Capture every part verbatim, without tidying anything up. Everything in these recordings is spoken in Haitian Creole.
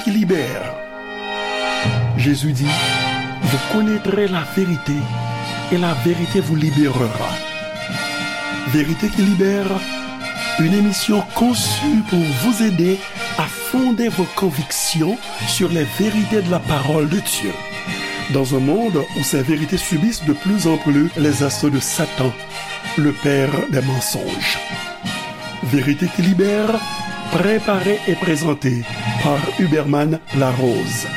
qui libère. Jésus dit, vous connaîtrez la vérité et la vérité vous libérera. Vérité qui libère, une émission conçue pour vous aider à fonder vos convictions sur les vérités de la parole de Dieu. Dans un monde où ces vérités subissent de plus en plus les assauts de Satan, le père des mensonges. Vérité qui libère, préparée et présentée par Huberman Larose.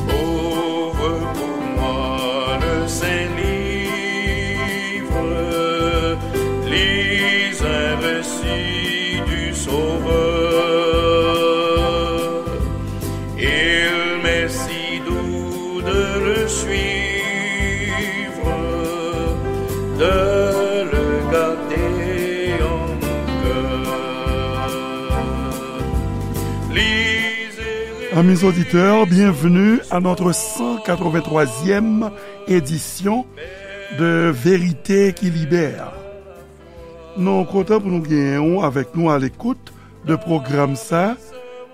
Ouvre pour moi le Saint-Livre, lis un récit du Sauveur. Il m'est si doux de le suivre, de le garder en cœur. Lisez. Amis auditeurs, bienvenue à notre cent quatre-vingt-troisième édition de Vérité qui libère. Nou kontan pou nou genyen w avèk nou a lekout de pwogram sa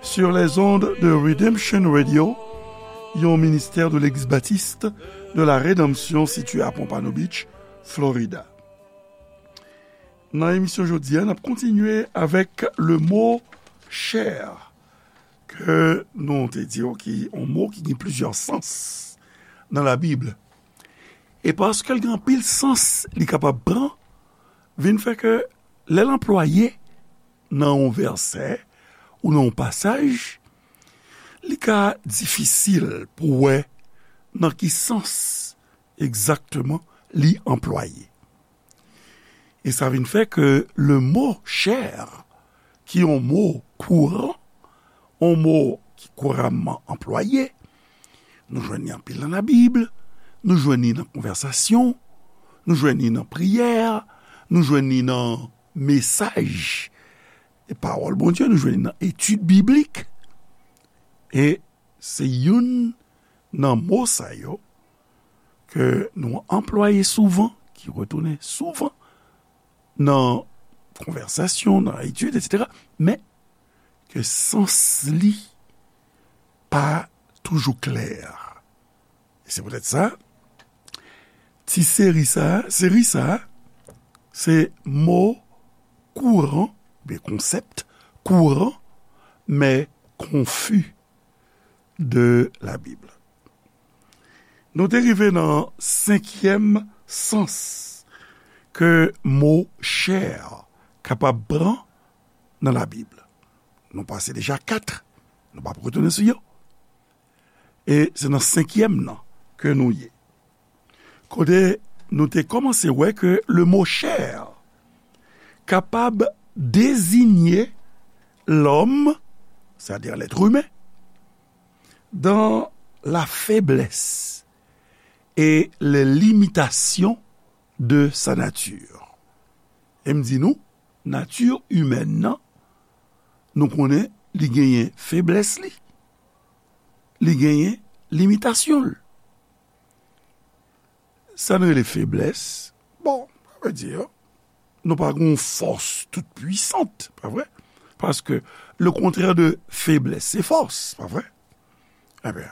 sur les ondes de Redemption Radio, yon ministè de Legliz Batis de la Redanmsyon sitiye a Pompano Beach, Florida. Nan emisyon jodi a, n ap kontinye avèk le mot chair, ke nou te di w ki yon mo ki gen plizyè sans nan Labib. E paske l gen anpil sans li kapab pran, vin fè ke lè l anplwaye nan yon vèsè ou nan yon pasaj, li ka difisil pou wè nan ki sans egzakteman li anplwaye. E sa vin fè ke le mot chair, ki yon mo kouran, yon mo ki kouramman anplwaye, nou jwenn li anpil nan Labib, nou jwenn li nan konvèsasyon, nou jwenn li nan priyè, nou jwenn li nan mesaj e pawòl Bondye, nou jwenn li nan etid biblik. E se youn nan mo sa yo ke nou anplwaye souvan, ki retounen souvan nan konvèsasyon, nan etid, etsetera, men ke sans li pa toujou klè. E se poutèt sa, ti seri sa, seri sa, se mo kouran, oubyen konsèp kouran, men konfi de Labib. Nou te rive nan senkyèm sans ke mo chair kapab pran nan Labib. Nou pase deja kat, nou p ap retounen sou yo. E se nan senkyèm nan ke nou ye. Kote nou te kòmanse wè ke le mot chair kapab dezinye lòm, sètadi lèt imen, dans la faiblesse et les limitations de sa nature. E m di nou, nati imèn nan, nou konnen li genyen feblès li, li genyen limitasyon l. Sa n rele feblès, bon, sa vle di, nou pa gen yon fòs tout pwisant, pa vre? Paske le contraire de faiblesse, se fòs, pa vre? Ebyen,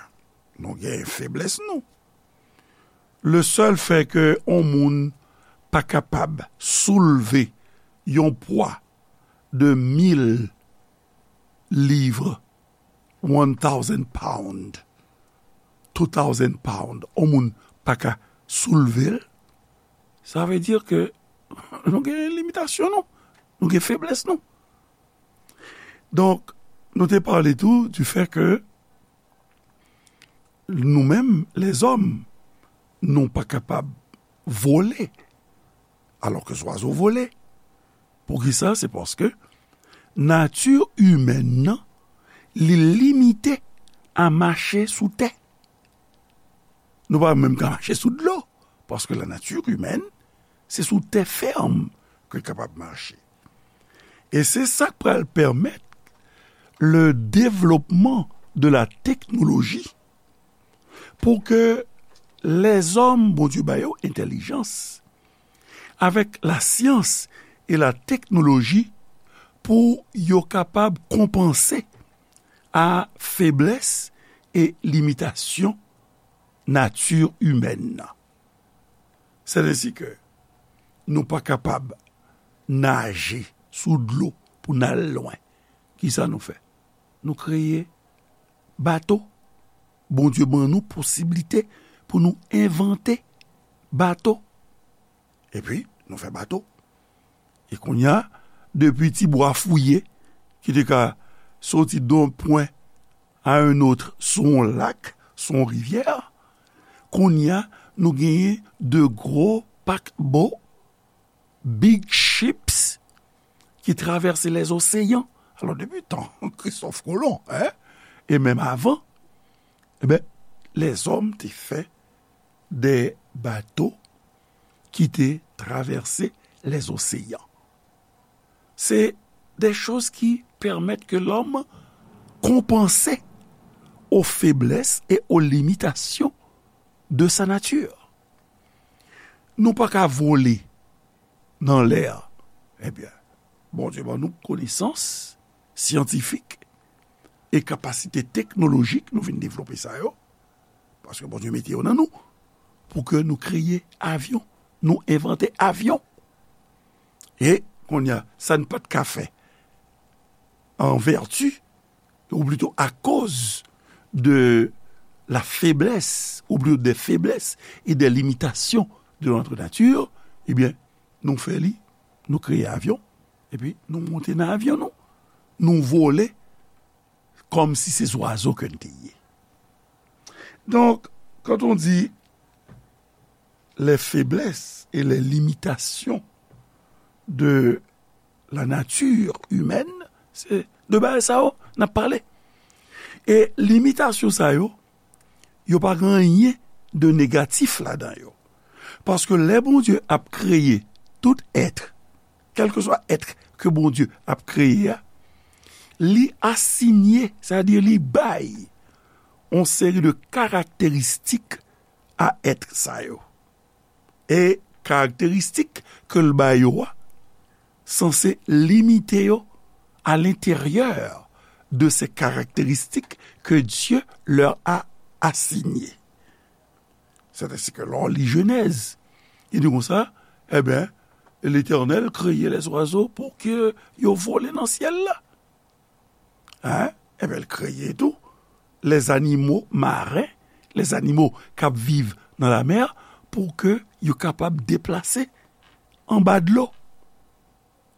nou gen feblès nou. Le sèl fè ke yon moun pa kapab soulve yon pwa de mil liv, one thousand pound, two thousand pound, yon moun pa ka soulve l, sa vle di ke nou gen limitasyon nou, nou gen feblès nou. Donk, nou te pale tou du fait que nou menm, lèzòm, nou pa kapab vole, alò ke zwazo vole. Poukisa? Se paske nati imèn nan, li limite a mache sou tè. Nou pa menm ka mache sou dlo, paske la nature humaine, se sou tè fèm ke l kapab mache. E se sa k pral pèmèt le développement de la technologie pou ke Lèzòm, Bondye ba yo entèlijans, avèk lasyans e lateknoloji pou yo kapab konpanse a feblès e limitasyon nati imèn nan. Sètènsi ke nou pa kapab naje sou dlo pou n al lwen. Kisa nou fè? Nou kreye bato. Bondye ban nou posiblite pou nou envante bato. Epi, nou fè bato. E kounye a, depi ti bwa fouye, ki te ka soti de yon pwen a yon lòt sou yon lak, sou yon rivyè, kounye a, nou genyen de gwo pakbo, big ships, ki travèse lèzoseyan. Alò, depi tan Kristòf Kolon, en, e menm avan, e ben, lèzòm te fè de bato ki te travèse lèzoseyan. Se de choz ki pèmèt ke lòm konpanse aux faiblesses et aux limitations de sa nature. Nou pa ka vole nan lè a. Ebyen, Bondye ban nou konesans syantifik e kapasite teknolojik, nou vin devlope sa yo, paske Bondye mete yo nan nou, pou ke nou kreye avyon, nou envante avyon. E, kounye a, sa n pa t ka fè an vèti, ou plito akoz de la feblès, ou plito de feblès e de limitasyon de notre nature, ebyen, nou fè li, nou kreye avyon, epi nou monte nan avyon nou, nou vole kòmsi se zwazo ke n te ye. Donc, quand on dit les faiblesses et les limitations de la nature humaine, se de bagay sa yo n ap pale. E limitasyon sa yo, yo pa gen anyen de negatif ladan yo. Paske lè Bondye ap kreye tout èt, kèlkeswa èt ke Bondye ap kreye a, li asinye, sètadi li bay yon seri de karakteristik a èt sa yo. E karakteristik ke l ba yo a sanse limite yo à l'intérieur de ces caractéristiques que Dieu leur a assignées. C'est ainsi que lè w li Jenèz, li di konsa, ebyen, Letènèl kreye lèzwazo pou ke yo vole nan syèl la. Hein? Ebyen, l kreye tou lèzanimo maren, lèzanimo k ap viv nan lamè, pou ke yo kapab deplase anba dlo.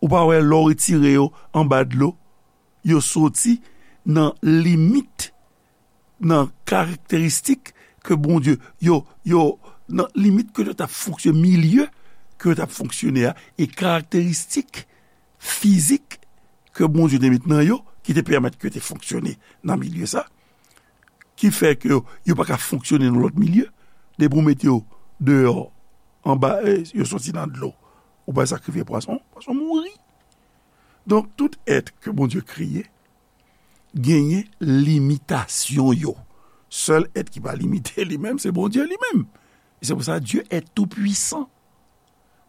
Ou pa wè lè w retire yo anba dlo, yo soti nan limit, nan karakteristik ke Bondye, yo, yo, nan limit ke yo t ap fonksyone, milye ke yo t ap fonksyone a, e karakteristik fizik ke Bondye te met nan yo, ki te pèmèt ke yo te fonksyone nan milye sa, ki fè ke yo, yo pa ka fonksyone nan lòt milye, depi w mete yo deyò, anba, eh, yo soti nan dlo, ou bay sakrifye pwason, pwason mouri. Donk, tout èt ke Bondye kreye, genyen limitasyon yo. Sèl èt ki pa limite li menm, se Bondye li menm. E se pou sa, Dieu est tout puissant.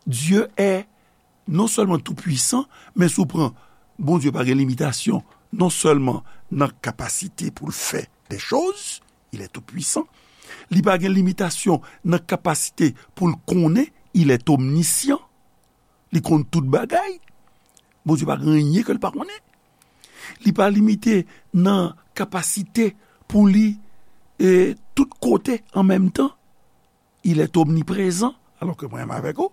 Dieu est non sèlman tou pwisan, men si w pran Bondye pa gen limitasyon, non sèlman nan kapasite pou l fè de choz, il est tout puissant, li pa gen limitasyon nan kapasite pou l konnen, il est omniscient, li konn tout bagay. Bondye pa gen anyen ke l pa konnen. Li pa limite nan kapasite pou li, e, tout kote an menm tan. Il est omniprezan, alò ke mwen menm avèk ou,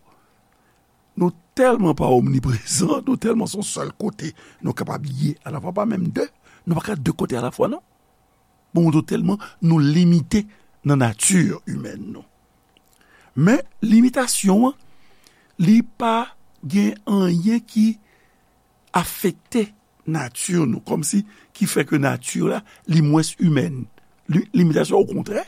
nou tèlman pa omniprezan, nou tèlman se yon sèl kote nou kapab ye alafwa, pa menm de, nou pa ka de kote alafwa, non. Bon, nou tèlman nou limite nan nati imèn nou. Men, limitasyon an, li pa gen anyen ki afekte nati nou, kòmsi ki fè ke nati la, li mwens imèn. Li, limitasyon, okontrè,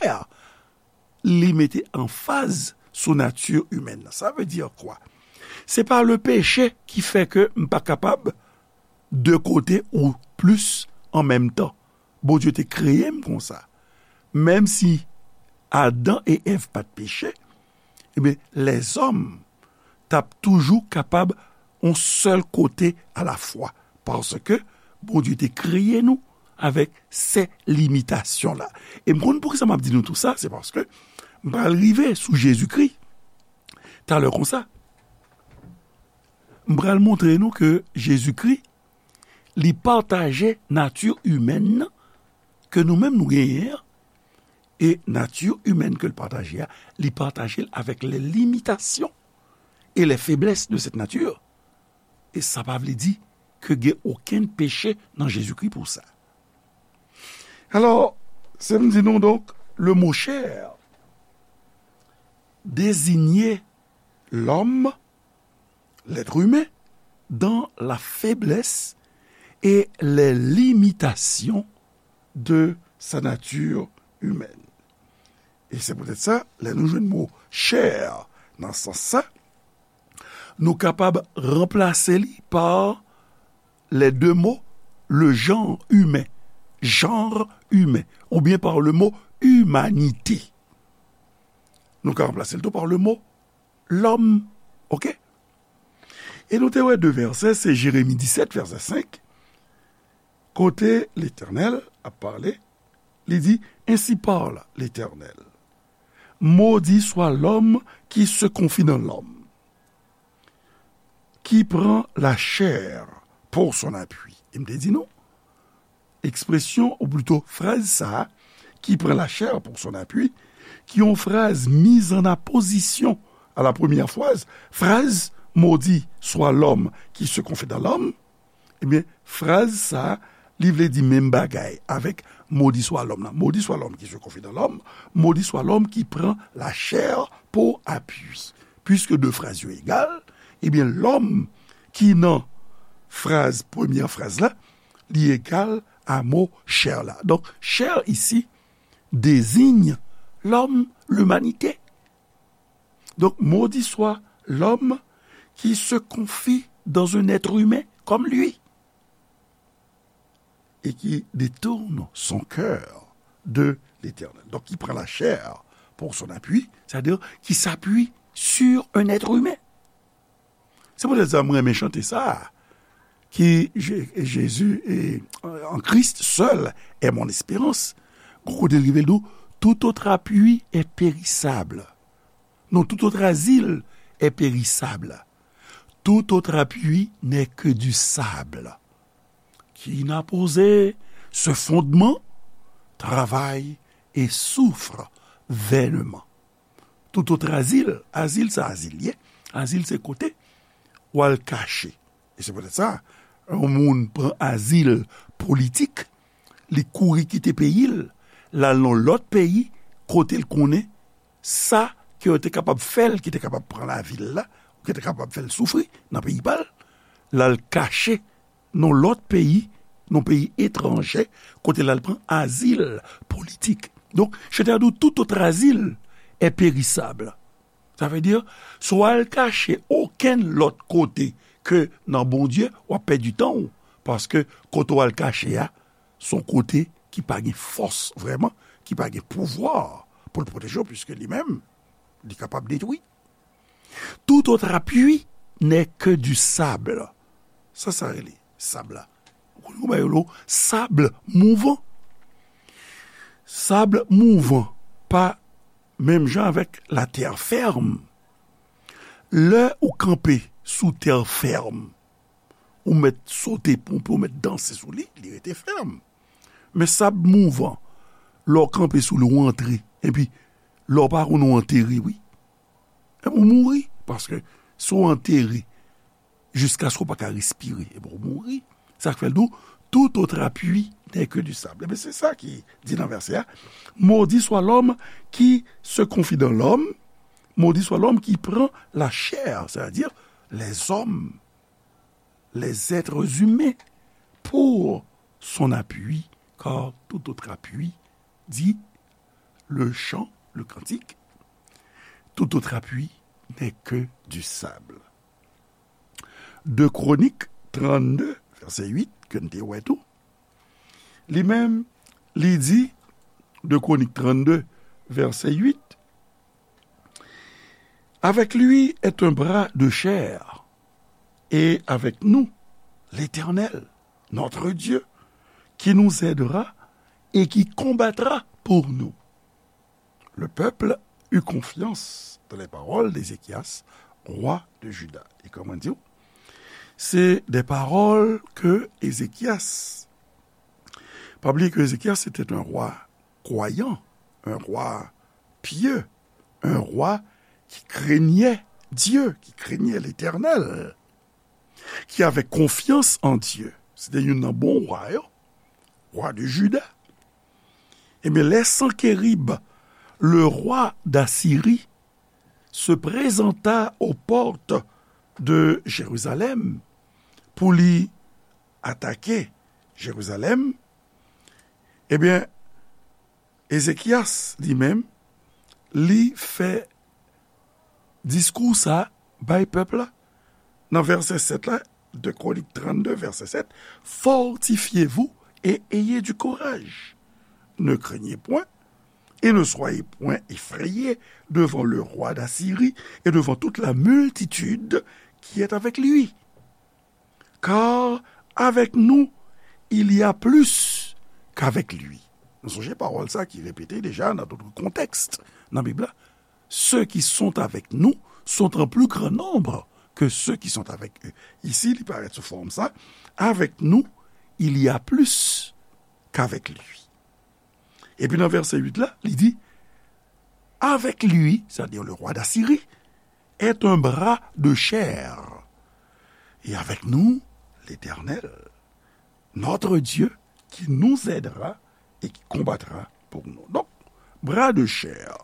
li mete anfaz sou nati imèn nan. Sa vle di kwa? Se pa le peche ki fè ke m pa kapab de kote ou plis an menm tan. Bondye te kreye m konsa. Menm si Adan e Èv pa t peche, ebyen, lèzòm t ap toujou kapab yon sèl kote alafwa, paske Bondye te kreye nou avèk se limitasyon la. E m konn poukisa m ap di nou tou sa, se paske m pral rive sou Jezikri talè konsa. M pral montre nou ke Jezikri, li pataje nati imèn nan ke nou menm nou genyen an, e nati imèn ke l pataje a, li pataje l avèk les limitations et les faiblesses de cette nature. E sa pa vle di ke gen okenn peche nan Jezikri pou sa. Alò, se m di nou donk, le mot chair désignait l'homme, l'être humain, dans la faiblesse et les limitations de sa nature humaine. E se poutèt sa, lè nou jwenn mo chair nan sans sa, nou kapab ranplase li pa les deux mots, le genre humain, genre humain, oubyen pa le mot humanité. Nou ka ranplase l tou pa le mot l'homme. Oke? E nou te wè de vèsè, se Jeremi disèt, vèsè senk, kote Letènèl ap pale, li di, Ainsi parle l'Éternel. Maudit soit l'homme qui se confie dans l'homme, qui prend la chair pour son appui. E m te di nou, ekspresyon, ou plito fraz sa a, qui prend la chair pour son appui, ki yon fraz mise en apposition à la première phrase, fraz, maudit soit l'homme qui se confie dans l'homme, ebyen, fraz sa a, li vle di menm bagay avèk maudit soit l'homme nan. Maudit soit l'homme qui se confie dans l'homme, maudit soit l'homme qui prend la chair pour appui. Puiske de fraz yo egal, ebyen, l'homme ki nan fraz, premyè fraz la, li egal a mo chair la. Donk, chair isi désigne l'homme, l'humanité. Donc, maudit soit l'homme qui se confie dans un être humain comme lui et qui détourne son cœur de l'Éternel. Donc, qui prend la chair pour son appui, c'est-à-dire qui s'appuie sur un être humain. Se poutèt sa mwen renmen chante sa a, ki Je- Jésus est en Christ seul est mon espérance. Gon kote l rive l di w, tout autre appui est périssable. Non, tout autre asile est périssable. Tout autre appui n'est que du sable. Qui n'a posé ce fondement travaille et souffre vainement. Tout autre asile, asile sa asile ye, asile se kote w al kache. E se poutèt sa, yon moun pran azil politik, li kouri kite peyi l, l al nan lòt peyi, kote l konnen sa ke yo te kapab fè l, ki te kapab pran lavi l la, ou ki te kapab fè l soufri nan peyi pa l, l al kache nan lòt peyi, nan peyi etranje, kote l al pran azil politik. Donk, chante a di w, tout autre asile est périssable. Sa vle di, si w al kache okenn lòt kote ke nan Bondye, w ap pèdi tan w, paske kote w al kache a, se yon kote ki pa gen fòs vrèman, ki pa gen pouvwa pou l pwoteje w, piske li menm, li kapab detwi. Tout autre appui n'est que du sable. Sa, sa rele sab la. Ou konn kouman yo rele sab mouvan. Sab mouvan pa menm jan avèk latè fèm. Lè ou kanpe sou tè fèm, ou mèt sote ponpe, ou mèt danse sou li, li rete fèm. Men sab mouvan, lè w kanpe sou li, ou antre, epi lè w pa konn ou antere, wi. Epi ou mouri, paske si w antere, jiskaske w pa ka respire, epi ou mouri. Sa k fè l di w, tout autre appui n'est que du sable. Ebyen, se sa ki di nan vèsè a, maudit soit l'homme qui se confie dans l'homme, maudit soit l'homme qui prend la chair, c'est-à-dire les hommes, les êtres humains, pour son appui, car tout autre appui, dit le chant, le cantique, tout autre appui n'est que du sable. De Kronik trannde, vèsè uit, ke n te wè tou, li menm, li di, de Kronik trannde, verset huit. Avec lui est un bras de chair, et avec nous, l'Éternel, notre Dieu, qui nous aidera et qui combattra pour nous. Le peuple eut confiance dans les paroles d'Ézéchias, roi de Juda. E kòman di w? Se de pawòl ke Ezekyas, pa bliye ke Ezekyas se te yon wa kwayan, yon wa pye, yon wa ki krenye Dye, ki krenye Letènèl, ki avè konfyans an Dye. Se te youn nan bon wa yo, wa de Jida. Ebyen, lè Sankerib, le roi d'Assyrie, se présenta aux portes de Jérusalem pou li atake Jerizalèm, ebyen, Ezekyas, li menm, li fè diskou sa bay pèp la. Nan vèsè sèt la, de Kronik trannde, vèsè sèt, fortifiez-vous et ayez du courage. Ne craignez point et ne soyez point effrayés devant le roi d'Assyrie et devant toute la multitude qui est avec lui. Car avec nous, il y a plus qu'avec lui. Nou sonje pawòl sa ki repete deja nan dòt kontèks nan Bib la. Ceux qui sont avec nous sont en plus grand nombre que ceux qui sont avec eux. Isi, li parèt sou fòm sa. Avec nous, il y a plus qu'avec lui. Epi nan vèsè uit la, li di, avec lui, c'est-à-dire le roi d'Assyrie, est un bras de chair. Et avec nous, l'Éternel, notre Dieu, qui nous aidera et qui combattra pour nous. Donk, bra de chair.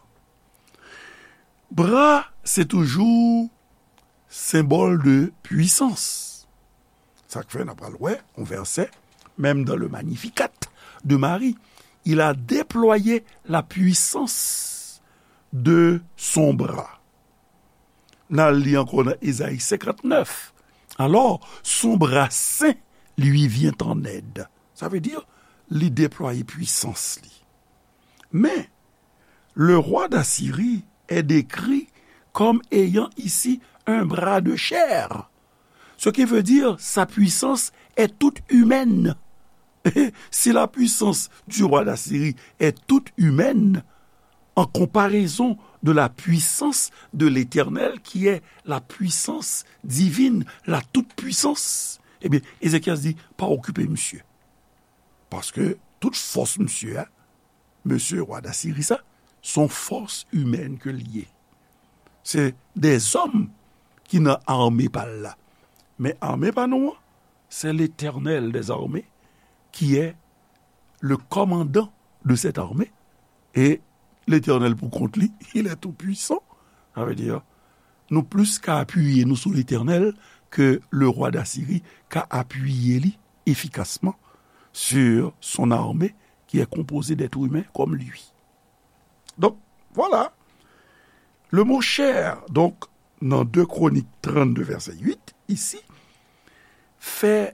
Bra, se toujou senbòl de pwisans. Sa k fè n ap pral wè yon vèsè, menm dans le Magnificat de Marie, il a déployé la puissance de son bras. N al li ankò nan Ezayi senkantnèf. Alors, son bras saint lui vient en aide. Sa vle di, li deplwaye pwisans li. Men, le roi d'Assyrie est décrit comme ayant ici un bras de chair, ce qui veut dire sa puissance est toute humaine. Si la puissance du roi d'Assyrie est toute humaine, en comparaison de la puissance de l'Éternel, qui est la puissance divine, la toute-puissance, ebyen, Ezekyas di, pa okipe misye. Paske tout fòs misye a, mesye wa Dasiri sa, se yon fòs imèn ke l ye. Se dèzòm ki nan ame pa l la. Men ame pa nou an, c'est l'Éternel des armées qui est le commandant de cette armée. Et l'Éternel pou kont li, il est tout puissant. Sa vle di, nou plis ka apiye nou sou Letènèl ke le roi d'Assyrie ka apiye li efikasman sur son armée qui est composée d'êtres humains comme lui. Donc, voilà. Le mot chair, donc, nan de Kronik trannde, vèsè uit, isi, fè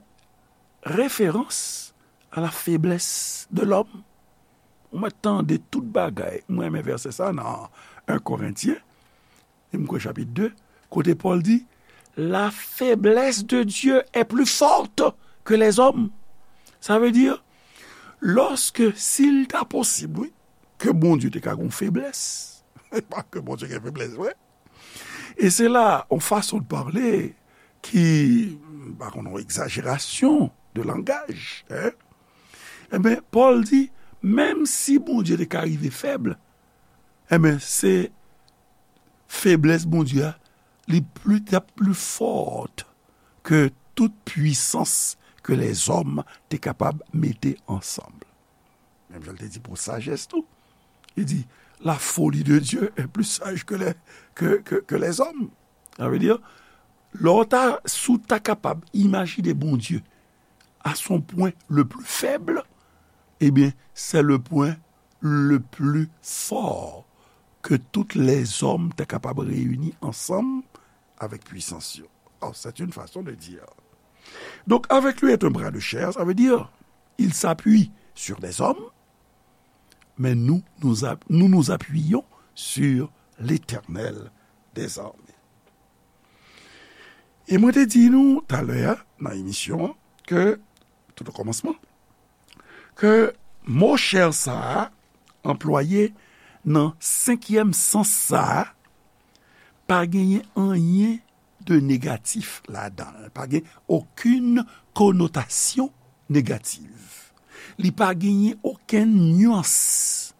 referans à la faiblesse de l'homme. Ou mèt tande tout bagay. Mwen renmen vèsè sa nan en Korentyen, e m kwè chapit de, kote Pòl di, la faiblesse de Dieu est plus forte que les hommes. Sa vle di, lòske, si l ta posib, wi, ke Bondye te ka gen yon feblès, pa ke Bondye gen feblès vre. E se la, yon fason de pale ki, m pa konn, yon egzajerasyon de langaj, en. Enben, Pòl di, menm si Bondye te ka rive fèb, enben, se feblès Bondye a, li pli, t ap pli fò ke tout pwisans ke lèzòm te kapab mete ansanm. Menm jan l te di pou sajès tou. Li di, la folie de Dieu est plus sage que les, que, que, que les hommes. Sa vle di, lè w ta, si w ta kapab imajine Bondye à son point le plus faible, ebyen, c'est le point le plus fort que tous les hommes te kapab reyini ansanm avèk pwisans yo. Oh, c'est une façon de dire. Donc, avec lui est un bras de chair, ça veut dire, il s'appuie sur des hommes, mais nous nous, app- nous nous appuyons sur l'Éternel des armées. E mwen te di nou talè a nan emisyon an ke, tout o kòmansman, ke mo chè sa a anplwaye nan senkyèm sans sa a pa genyen anyen de negatif ladan l. Pa gen okenn konotasyon negatif. Li pa genyen okenn nyans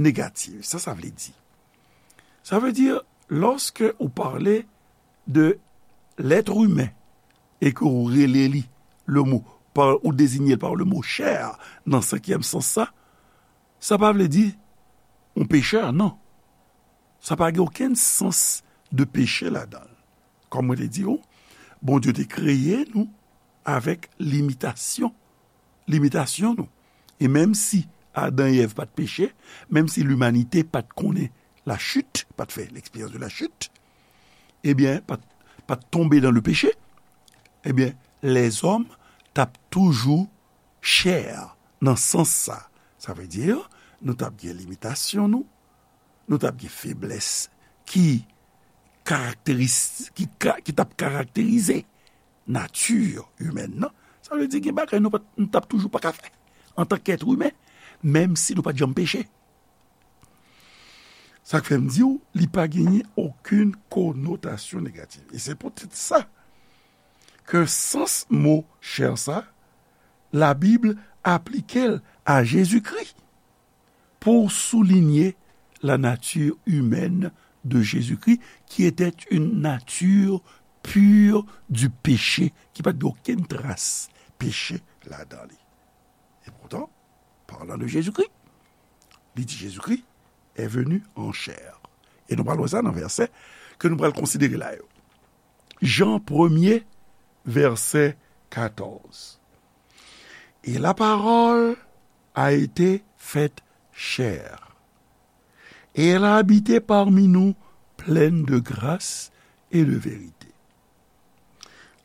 negatif. Sa sa vle di? Sa vle di, lòske ou pale de l'être humain e ke ou rele li le mo, pa, ou dezinye l pa le mo chè nan senkyèm sans sa, sa pa vle di yon pechè, non. Sa pa gen okenn sans de peche ladan l. Kòm mwen te di w, Bondye te kreye nou avèk limitasyon, limitasyon nou. E menm si Adan e Èv pa t peche, menm si limanite pa t konnen lachit, pa t fè l'expérience de la chute, ebyen, pa t, pa t tonbe dans le péché, ebyen, lèzòm t ap toujou chè nan sans sa. Sa vle di, nou t ap gen limitasyon nou, nou t ap gen feblès ki karakteris-, ki ka, ki t ap karakterize nati imèn nan. Sa vle di gen bagay nou pa t, nou t ap toujou pa ka fè antank èt imen, menm si nou pa t janm peche. Sa k fè m di w, li pa genyen okenn konotasyon negatif. E se poutèt sa ke sans mo chè sa, Labib aplike l a Jezikri pour souligner la nature humaine de Jésus-Christ, qui était une nature pure du péché, ki pa t gen okenn tras peche ladan li. E poutan, parlant de Jésus-Christ, li di Jésus-Christ est venu en chair. E nou pral wè sa nan vèsè ke nou pral konsidere la yo. Jan premye, vèsè katòz. Et la parole a été faite chair. Et elle a habité parmi nous, pleine de grâce et de vérité.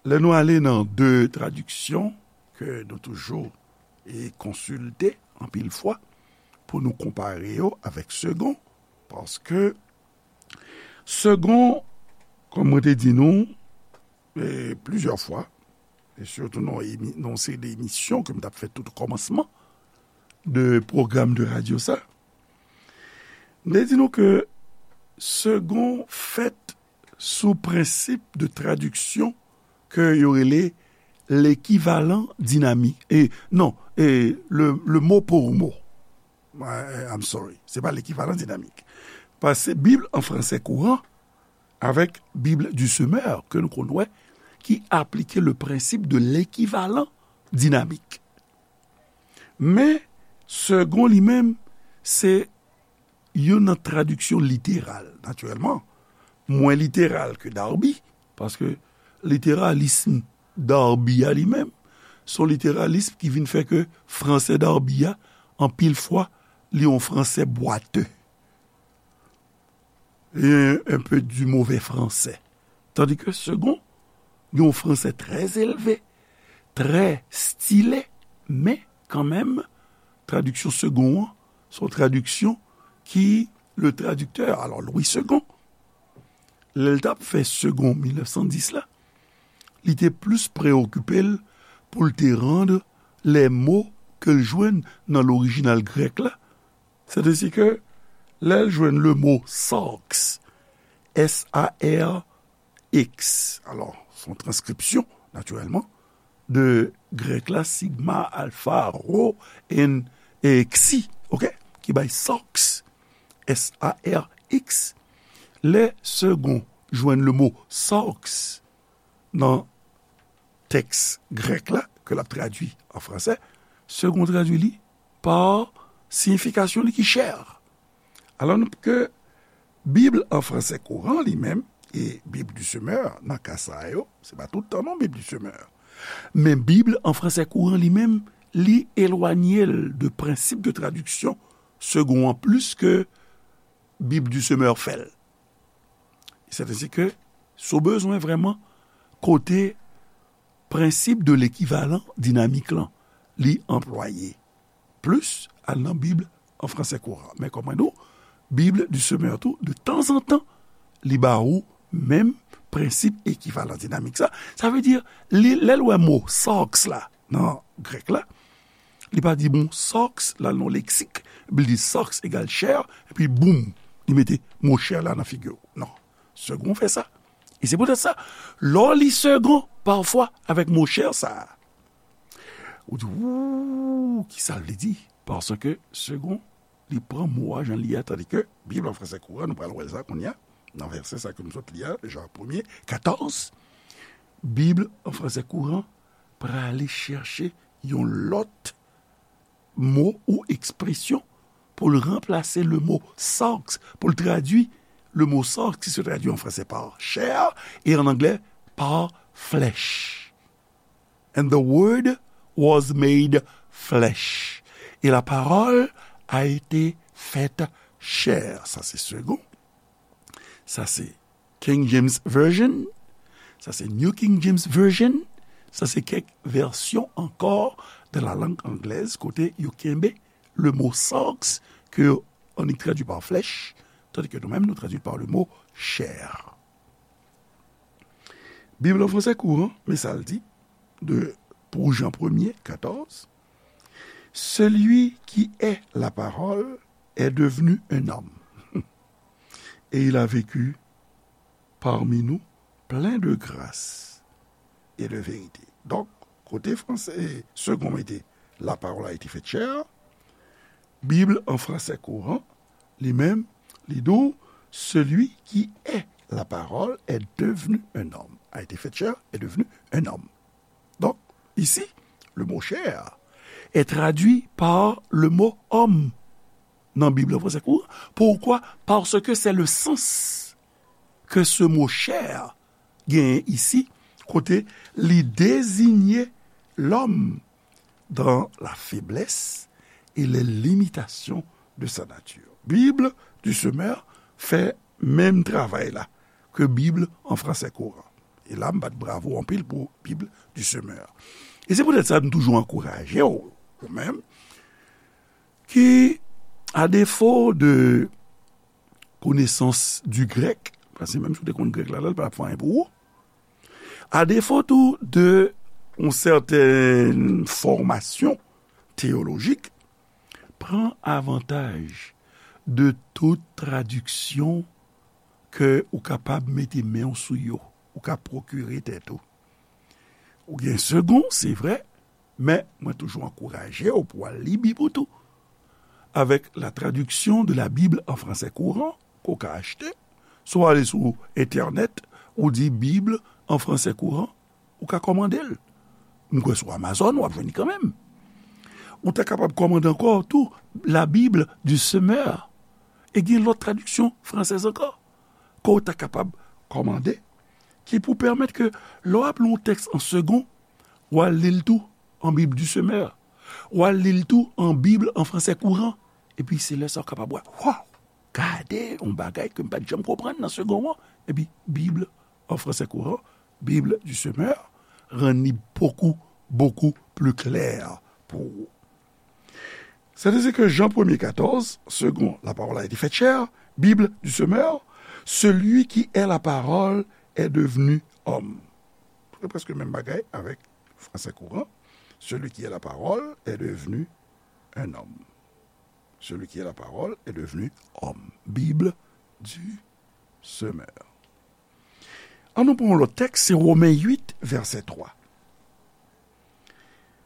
Lè nou ale nan de tradiksyon ke nou toujou e konsilte anpil fwa pou nou konpare yo avèk Segond, paske Segond, kòm mwen te di nou, e, plizyè fwa, e sitou nan emi-, nan yon seri de emisyon ke m t ap fè tout o kòmansman de pwogram de radyo sa, m te di nou ke Segond fèt sou prensip de tradiksyon ke yo rele lekivalan dinamik. E, non, e, le, le mot pour mot. I, I'm sorry. Se pa lekivalan dinamik. Paske Bib an fransè kouran avèk Bib du Semeur ke nou konn wè ki aplike le principe de l'équivalent dynamique. Men, Segond li menm, se youn nan tradiksyon literal, natirèlman, mwen literal ke Darby, paske literalism Darby a li menm, se yon literalism ki vin fè ke fransè Darby a, anpil fwa, li yon fransè bwate. E un peu du mauvais français. Tandis que Segond gen yon fransè trè elve, trè stile, men kanmenm, tradiksyon Segond an, se yon tradiksyon ki, le tradiktè, alò, Louis Segond, lè l t ap fè Segond mil nèf san dis la, li te plis preokipe l pou l te rann lè mo ke l jwenn nan lorijinal grèk la. Sètadi ke lè l jwenn le mo sarx, S A R X, alò, se yon transkripsyon, natirèlman, de grèk la, sigma, alpha, rho, and, e, xi, oke? Ki bay sarx, S A R X. Lè Segond jwenn le mo sarx nan tèks grèk la, ke l ap tradui an fransè, Segond tradui li pa siyifikasyon li ki chè. Alò ke Bib an fransè kouran li menm, e Bib du Semeur, nan ka sa yo, se pa tout tan non Bib du Semeur. Men Bib an fransè kouran li menm, li elwanye l de prensip de tradiksyon Segond an plis ke Bib du Semeur fè l. Sètadi ke, si w bezwen vrèman kote prensip de lekivalan dinamik lan, li anplwaye plis, al nan Bib an fransè kouran. Men kòm mwen di w, Bible du Semeur tou, de tanzantan, li ba ou menm prensip ekivalan dinamik sa. Sa vle di, li, lè l wè mo sarx la, nan grèk la, li pa di bon sarx la nan leksik, epi li di sarx egal chè, epi boum, li mete mo chè la nan figi w. Non. Segond fè sa. E se poutèt sa, lè w li Segond, pafwa, avèk mo chè sa a, ou di, ou, kisa l vle di? Paske Segond, li pran mo a jan li ye a, tandike Bib an fransè kouran, nou pral wè sa kounye a, nan vèsè sa ke nou sot li a, Jan premye, katòz, Bib an fransè kouran prale chèche yon lòt mo ou ekspresyon pou l ranplase le mo sarx, pou l tradui le mo sarx ki se tradui an fransè par chair e an anglè par flesh. And the word was made flesh. Et la parole a été faite chair. Sa se Segond. Sa se King James Version. Sa se New King James Version. Sa se kèk vèsyon ankò de la langue anglaise kote yo kenbe le mo sarx ke yo annik tradui par flesh, tandis que nous-mêmes, nous traduit par le mot chair. Bib an fransè kouran, men sa l di, de, pou Jan premye, katòz, Celui qui est la parole est devenu un homme, et il a vécu parmi nous plein de grâce et de vérité. Donk, kote fransè Segond mete la parole a été faite chair, Bib an fransè kouran, li menm, li di w, celui qui est la parole est devenu un homme, a été faite chair, est devenu un homme. Donc, ici, le mot chair est traduit par le mot homme nan Bib an fransè kouran. Pourquoi? Parce que c'est le sens que ce mot chair genyen isi, kote li désigne l'homme dans la faiblesse et les limitations de sa nature. Bib du Semeur fè menm travay la ke Bib an fransè kouran. E la, m bat bravo anpil pou Bib du Semeur. E se poutèt sa, m toujou ankouraje w, ou menm, ki, a defo de konesans du grèk, paske menm si w te konn grèk la, la, l pa t ap fè anyen pou ou. A defo tou de yon sèten fòmasyon teyolojik, pran avantaj de tout tradiksyon ke ou kapab mete men w sou yo, ou ka pwokire tèt ou. Ou gen Segond, se vre, men mwen toujou ankouraje w pou w al li Bib ou tou. Avec la traduction de la Bible en français courant, ke w ka achte, si w ale sou entènèt, ou di Bib an fransè kouran, ou ka kòmande l. M kwè sou Amazon, w ap jwenn li kanmenm. Ou ta kapab kòmande ankò tou La Bible du Semeur. E gen lòt tradiksyon fransèz ankò ke w ta kapab kòmande, ki pou pèmèt ke lè w ap li yon tèks an Segond, w al li l tou an Bib du Semeur. W al li l tou an Bib an fransè kouran. Epi se lè sa w kapab wè, waw, gade yon bagay ke m pa t janm konprann nan Segond an. Epi Bib an fransè kouran, Bible du Semeur, rann li beaucoup, beaucoup plus clair pou ou. C'est ainsi que Jean premier quatorze, Segond, la parole a été faite chair, Bible du Semeur, celui qui est la parole est devenu homme. Se prèske menm bagay avèk fransè kouran. Celui qui est la parole est devenu un homme. Celui qui est la parole est devenu homme. Bible du Semeur. An nou pran yon lòt tèks, se Women uit, vèsè twa.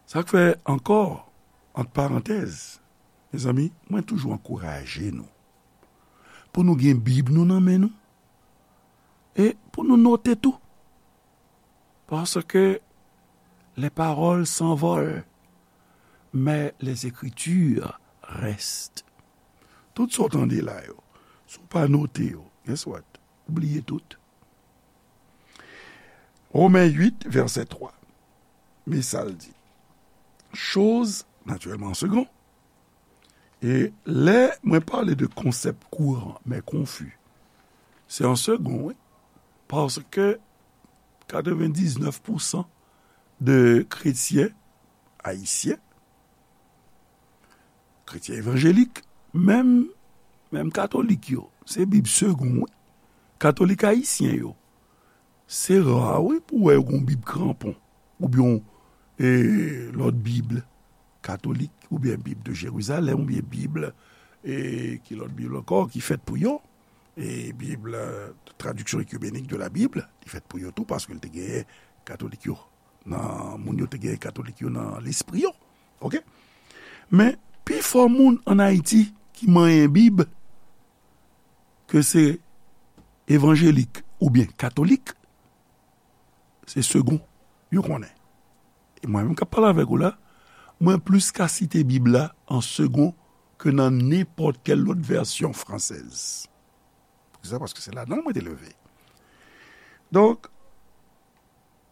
Sa k fè ankò, ant parantèz, mezanmi, mwen toujou ankouraje nou pou nou gen Bib nou nan men nou e pou nou note tou. Parce que les paroles s'envolent, mais les écritures restent. Tout sa w tande la yo, si w pa note yo, guess what? Ou bliye tout. Women uit, vèsè twa. Men sa l di. Chose, naturellement, en second. E lè mwen pale de konsèp kouran, men konfi, se an Segond, wi. Paske katrevendiznèf pousan de kretyen ayisyen, kretyen evanjelik, Menm, menm katolik yo, se Bib Segond, wi. Katolik ayisyen yo, se ra, wi, pou w wè yo gen yon Bib Kranpon, oubyen yon, e, lòt Bib katolik, oubyen Bib de Jérusalem, oubyen Bib, e, ki lòt Bib ankò, ki fèt pou yo, e, Bib, e, Traduction écuménique de la Bible, li fèt pou yo tou, paske l te genyen katolik yo nan, moun yo te genyen katolik yo nan lespri yo. Oke? Men, pifò moun ann Ayiti ki manyen Bib, ke se evanjelik oubyen katolik, se Segond yo konnen. E mwen menm k ap pale avèk ou la, mwen plis ka site Bib la an Segond ke nan nenpòt kèl lòt vèsyon fransèz. Poukisa? Paske se ladan l mwen te leve. Donk,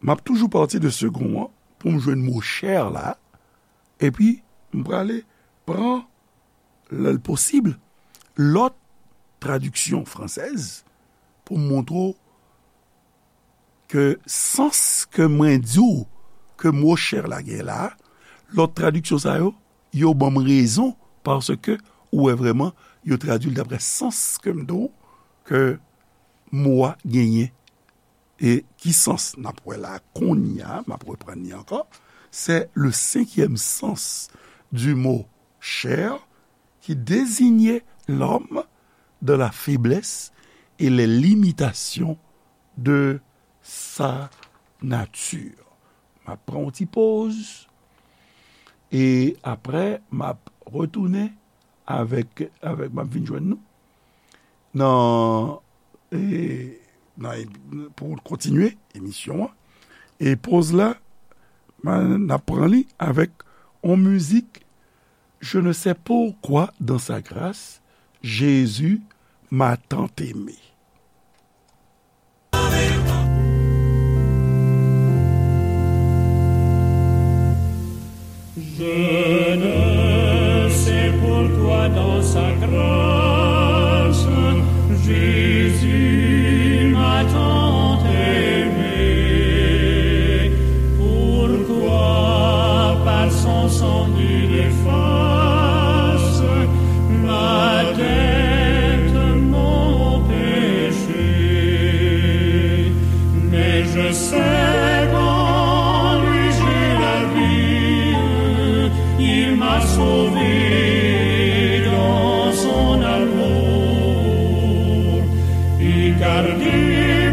m ap toujou pati de Segond an pou m jwenn mo chè la, epi m prale pran, lè l posib, lòt tradiksyon fransèz pou m montre w ke sans ke mwen di w ke mo chè la gen la, lòt tradiksyon sa yo, yo ban m rezon, paske ou wè vrèman yo tradui l daprè sans ke m di w ke mo a genyen. E ki sans n ap wè la kounye a, m ap reprann li ankò, c'est le cinquième sens du mot chair qui désignait l'homme dans la faiblesse et les limitations de sa nature. M ap pran yon ti poz, e apre, m ap retounen avèk, avèk, m ap vin jwenn nou nan, e, nan, pou kontinye emisyon an. E poz la, m a, n ap pran li avèk yon mizik, Je ne sais pourquoi dans sa grâce, Jésus m'a tant aimé. Je ne sais pourquoi dans sa grâce, Jésus m'a tant aimé. Pourquoi par son sang il efface ma dette, mon péché. Mais je sais qu'en lui j'ai la vie, il m'a sauvé dans son amour. Et gardé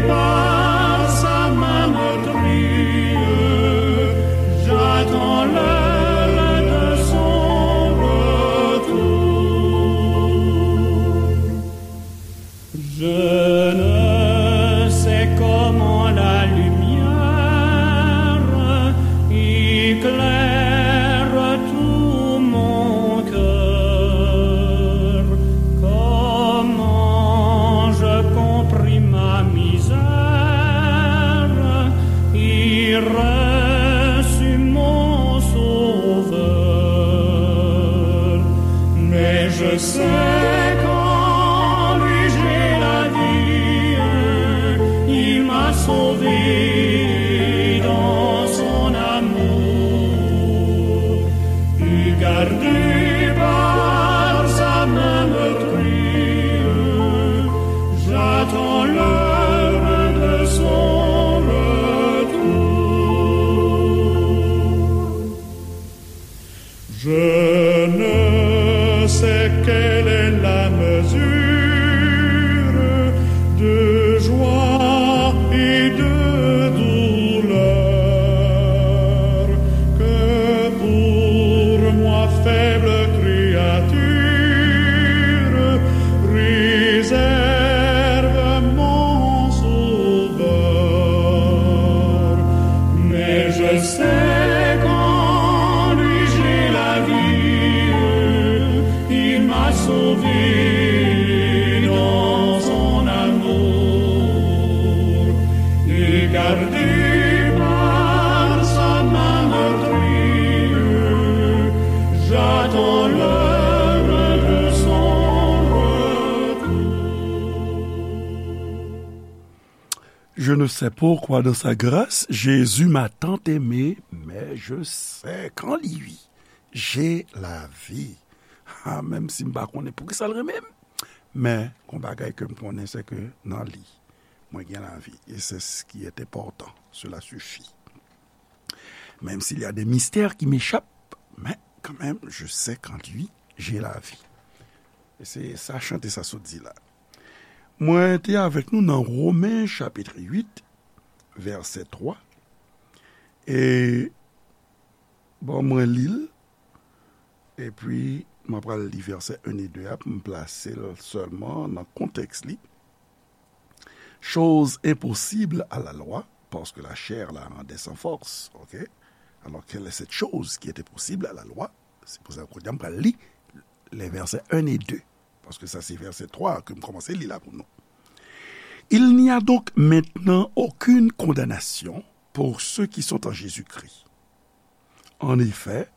par sa main meurtrie, j'attends l'heure de son retour. Je ne sais comment la lumière éclaire tout mon cœur, comment je compris ma misère et reçus mon Sauveur. Mais je sais qu'en lui j'ai la vie, il m'a sauvé dans son amour. Et gardé par sa main meurtrie, j'attends l'heure de son retour. Je ne sais quelle est la mesure de joie et de douleur que pour moi, faible créature, réserve mon Sauveur. Mais je sais qu'en lui j'ai la vie, il m'a sauvé dans son amour. Et gardé par sa main meurtrie, j'attends l'heure de son retour. Je ne sais pourquoi dans sa grâce, Jésus m'a tant aimé, mais je sais qu'en lui, j'ai la vie. a, menm si m pa konnen poukisa l renmen m, men yon bagay ke m konnen, se ke nan li, mwen gen lavi. E se s ki est enpòtan. Cela suffit. Même s'il y a des mystères qui m'échappent, mais quand même, je sais qu'en lui, j'ai la vie. E se sa chante sa sot di la. Mwen te avèk nou nan Women chapit uit, vèsè twa. E bon, mwen li l. Epi, mwen pral li vèsè un e de a pou m plase l sèlman nan kontèks li. Chose impossible à la loi, parce que la chair la rendait sans force. Ok? Alors, quelle est cette chose qui était possible à la loi? Se pou sa, kounye a, m pral li les versets un et deux. Parce que ça, c'est verset trois que m kòmanse li la pou nou. Il n'y a donc maintenant aucune condamnation pour ceux qui sont en Jésus-Christ. En effet,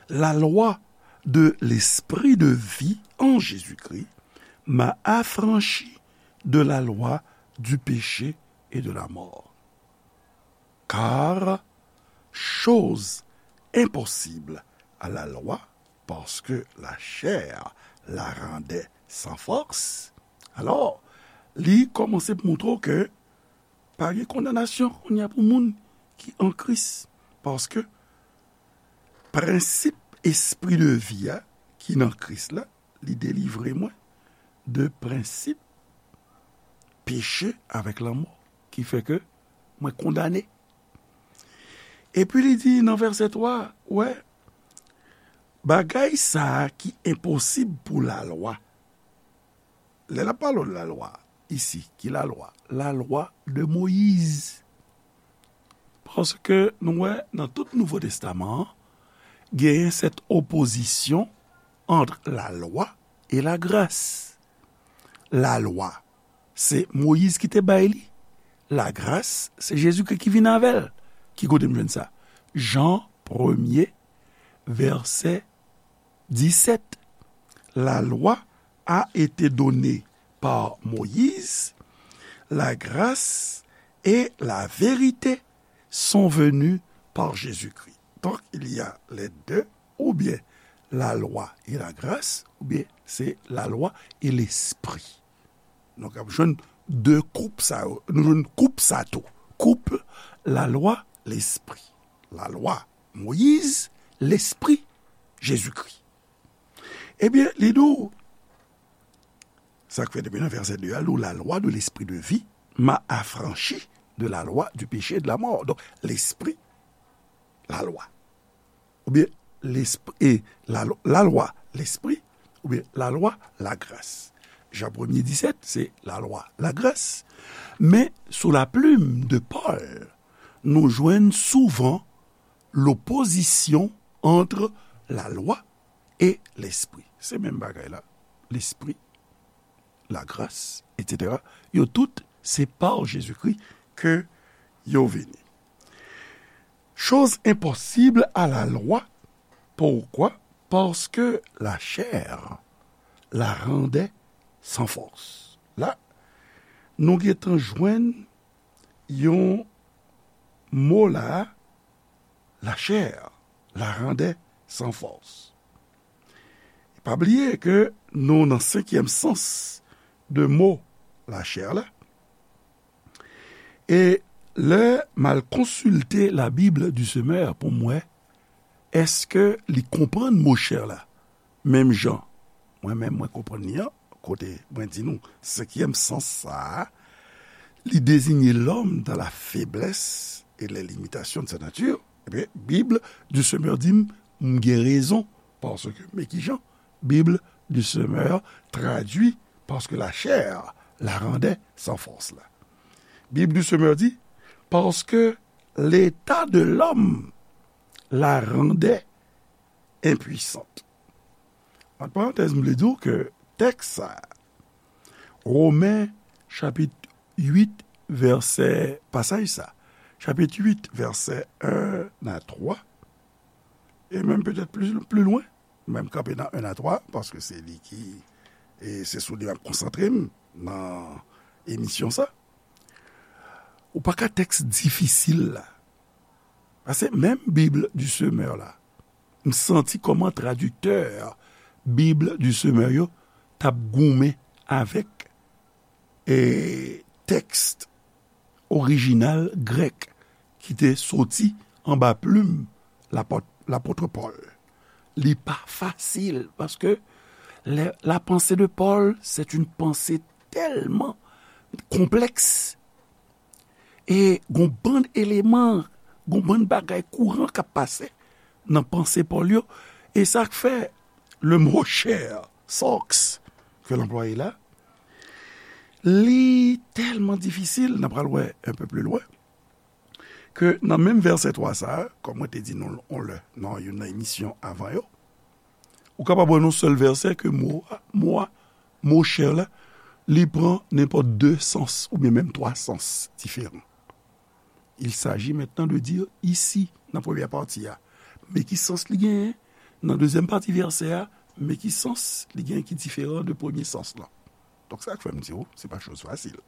la loi de l'esprit de vie en Jésus-Christ m'a affranchi de la loi du péché et de la mort. Car chose impossible à la loi, parce que la chair la rendait sans force. Alors, li kòmanse pou montre w ke pa gen kondanasyon kounye a pou moun ki an Kris. Paske prensip espri de vi a ki nan Kris la, li delivre mwen de prensip peche avèk lanmò, ki fè ke mwen kondane. Epi li di nan vèsè twa, wè, bagay sa a ki enposib pou lalwa. Lè l ap pale de lalwa, isi, ki lalwa? Lalwa de Moyiz. Paske nou wè nan tout Nouvo Testaman an, genyen sèt opozisyon ant lalwa e lagras. Lalwa, se Moyiz ki te bay li. Lagras, se Jezikri ki vin avè l. Ki kote m jwenn sa? Jan premye, vèsè disèt. La loi a été donnée par Moïse, la grâce et la vérité sont venues par Jésus-Christ. Donc, il y a les deux, ou bien la loi et la grâce, ou bien c'est la loi et l'esprit. Donk, ap jwenn de koup sa yo. Nou jwenn koup sa tou. Koup lalwa, lespri. Lalwa, Moyiz, lespri, Jezikri. Ebyen, li di w, sa k fè depi nan vèsè de a, la loi de l'esprit de vie m'a affranchi de la loi du péché et de la mort. Donk, lespri, lalwa. Oubyen, lespri, e, la, lalwa, lespri, oubyen lalwa, lagras. Jan premye disèt, se lalwa, lagras. Men, sou la plume de Paul, nou jwenn souvan lopozisyon ant lalwa e lespri. Se menm bagay la. Lespri, lagras, etsetera. Yo tout, se pa Jezikri ke yo vini. Chose impossible à la loi. Pourquoi? Parce que la chair la rendait sans force. La, nou gentan jwenn yon mo la, la chair la rendait sans force. Pa bliye ke nou nan senkyèm sans de mo la chair la. E lè m al konsilte la Bible du Semeur pou m wè, èske li konprann mo chair la menm jan mwen menm mwen konprann li an, kote mwen di nou, senkyèm sans sa a, li désigne l'homme dans la faiblesse et les limitations de sa nature, ebyen, Bible du Semeur di m, m gen rezon, paske, men ki jan, Bible du Semeur tradui, parce que la chair la rendait sans force la. Bible du Semeur di, parce que l'état de l'homme la rendait impuissante. Ant parantèz, m vle di w ke tèks sa, Women chapit uit, vèsè, pasaj sa, chapit uit, vèsè en a twa, e menm petèt pli, pli lwen, men m kanpe nan en a twa, paske se li ki, e se sou li m ap konsantre m nan emisyon sa. Ou pa ka tèks difisil la. Paske menm Bible du Semeur la, m santi kòman tradiktè Bib di semè yo t ap goumen avèk e, tèks orijinal grèk ki te soti anba plim lapòt, lapòt Pòl. Li pa fasil, paske la, la pensée de Paul, c'est une pensée tellement complexe. E gon bann eleman, gon bann bagay kouran k ap pase nan panse Pòl yo. E sa k fè le mo chair, sarx, ke l anplwaye la, li tèlman difisil, n ap pral wè un peu plus loin, ke nan menm vèsè twa sa a, kòm mwen te di nou on lè nan youn nan emisyon avan yo, ou kapab wè nan sèl vèsè ke mo a, mo a, mo chair la, li pran nenpòt de sans oubyen menm twa sans diferan. Il s'agit maintenant de dire ici, nan premyè pati a, men ki sans li genyen, nan dezyèm pati vèsè a, men ki sans li genyen ki diferan de premye sans lan. Donk, sa k fè m di w, se pa choz fasil.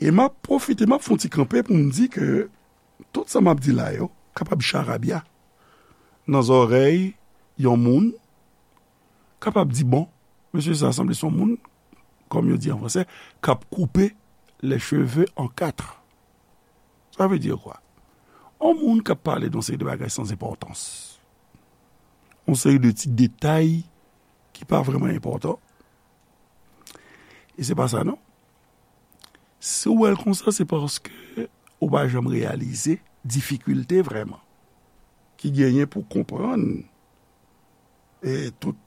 E m ap pwofite, m ap fè yon ti kanpe pou m di ke tout sa m ap di la yo kapab charabya nan zòrèy yon moun, kapab di, bon, mesye sa sanble se yon moun, kòm yo di an fransè, k ap koupe les cheveux en quatre. Sa vle di kwa? Yon moun k ap pale de yon seri de bagay san enpòtans, yon seri de ti detay ki pa vrèman enpòtan. E se pa sa, non. Si w wè l konsa, se paske ou pa janm reyalize difikilte vrèman ki genyen pou konprann, e, tout,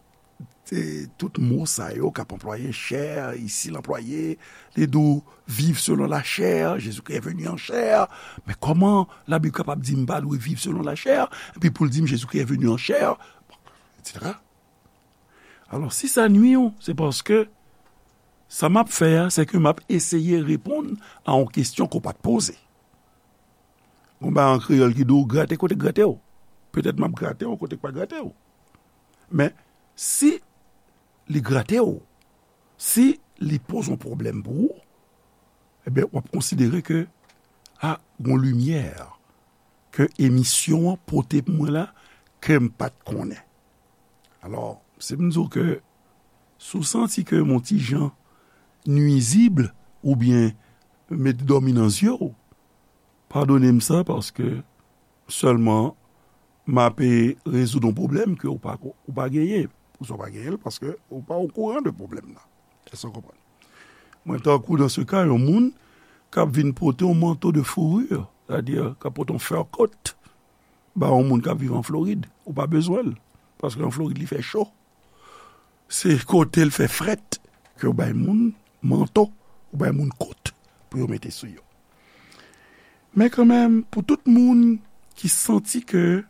e, tout mo sa yo k ap anplwaye, chair, isi l anplwaye, li di w, vivre selon la chair, Jésus-Christ est venu en chair. Men kòman Labib kapab di m pa dwe viv selon la chair, epi pou l di m Jésus-Christ est venu en chair, etsetera? Alò, si sa nwi w, se paske sa m ap fè a, se ke m ap eseye reponn a yon kesyon ke w pa t poze. Gon bagay an kreyòl ki di w grate kote k grate w. Petèt m ap grate w kote k pa grate w. Men, si li grate w, si li poze yon pwoblèm pou ou, ebyen, w ap konsidere ke, a, gon limyè ke emisyon an pote pou mwen la, ke m pa t konnen. Alò, si m di w ke, si w santi ke m on ti jan nwizib oubyen met dòmi nan zye w, padone m sa, paske sèlman m ape rezoud yon pwoblèm ke w pa, ou pa genyen. Poukisa w pa genyen l? Paske ou pa okouran de pwoblèm nan. Èske w konprann? Mwen, tankou, dans ce cas, yon moun k ap vin pote yon manto de fourrure, sètadi k ap pote yon fur coat, ba yon moun k ap viv an Florid, ou pa bezwen l, paske an Florid, li fè cho. Se kote l fè frèt ke w bay moun manto, ou bay moun kot pou yo mete sou yo. Men kanmenm, pou tout moun ki santi ke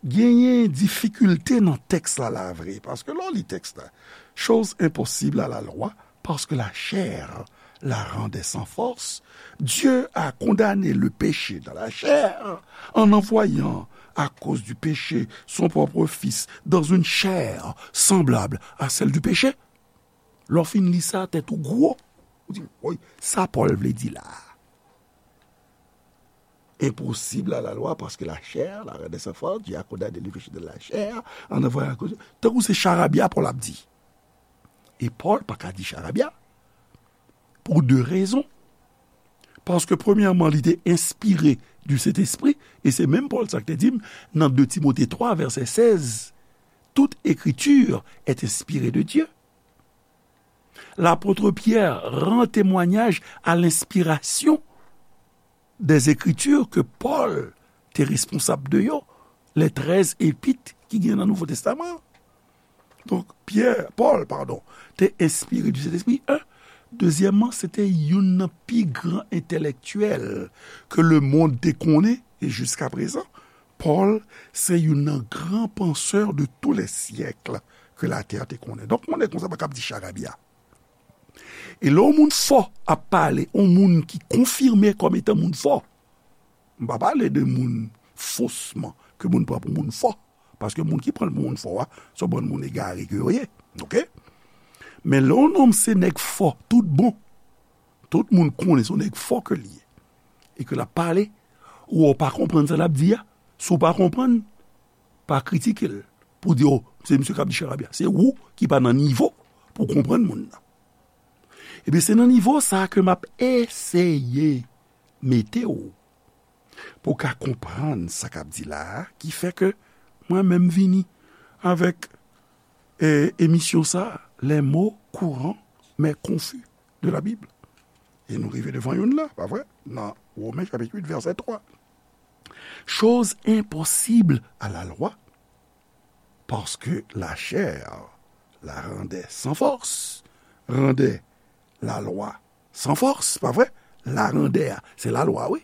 genyen difikilte nan tèks la, la vre, paske lè w li tèks la, chose impossible à la loi, parce que la chair la rendait sans force, Dieu a condamné le péché dans la chair en envoyant, à cause du péché, son propre Fils dans une chair semblable à celle du péché. Lè w fin li sa, tèt ou gwo. Ou di, woy, sa Pòl vle di la a? Impossible à la loi, parce que la chair la rendait sans force, Dieu a condamné le péché de la chair en envoyant, tankou se charabya Pòl ap di. E Pòl pa ka di charabya pou de rezon. Paske, premyèman, li te enspire du Sentespri, e se menm Pòl sa k te di m nan de Timote twa, vèsè sèz, toute écriture est inspirée de Dieu. L'apôtre Pierre rend témoignage à l'inspiration des Écritures ke Pòl te responsab de yo, les treize épîtres ki gen nan Nouvo Testaman. Donk, Pyè, Pòl, padon, te enspire du Sentespri, en. Dezyèmman, se te youn nan pi gran entèlektyèl ke lemonn te konnen, e jiskaprezan, Pòl se youn nan gran pansè de tous les siècles ke latè te konnen. Donk, yon nèg konsa pa kab di charabya. E lè yon moun fò ap pale, yon moun ki konfime kòm etan moun fò, m pa pale de moun fosman, ke moun pran pou moun fò, paske moun ki pran l pou moun fò a, se yon bann moun egare ke yo ye, oke? Men lè yon nonm se nèg fò, tout bon, tout moun konnen se yon nèg fò ke l ye, e ke l ap pale, ou wè w pa konprann sa l ap di a, si w pa konprann, pa kritike l. pou di, o, se misye k ap di charabya. Se ou ki pa nan nivo pou konprann moun nan. Ebyen, se nan nivo sa a ke m ap eseye mete w pou w ka konprann sa k ap di la a, ki fè ke mwen menm vini avèk, e, emisyon sa a, les mots courants mais confus de la Bible. E nou rive devan youn la, pa vre? Nan Women chapit uit, vèsè twa. Chose impossible à la loi, parce que la chair la rendait sans force, rendait la loi sans force, pa vre? La rendait, se la lwa, wi.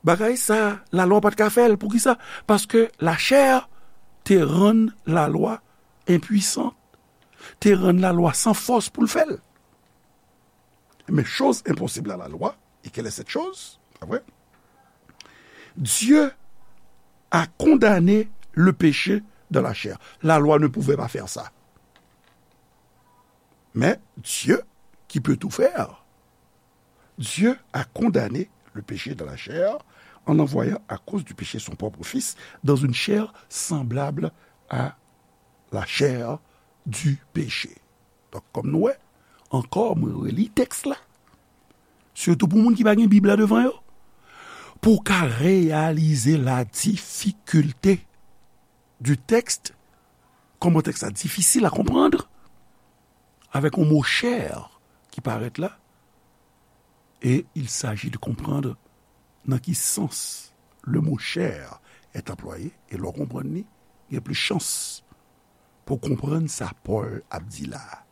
Bagay sa, la lwa pa t ka fè l. Poukisa? Paske la chair te rann la lwa enpwisan, te rann la lwa san fòs pou l fè l. Mais chose impossible à la loi, et quelle est cette chose? Pa vre? Dieu a condamné le péché dans la chair. La loi ne pouvait pas faire ça. Mais Dieu, qui peut tout faire, Dieu a condamné le péché dans la chair en envoyant à cause du péché son propre Fils dans une chair semblable à la chair du péché. Donk, kòm nou wè, ankò, mwen reli tèks la. Sitou pou moun ki pa gen Bib la devan yo. Pou w ka reyalize la difikilte du texte, kòman tèks la difisil a konprann, avèk yon mo chair ki parèt la, et il s'agit de comprendre nan ki sans le mot chair est employé, e lè w konprann li, gen plis chans pou w konprann sa Pòl ap di la a.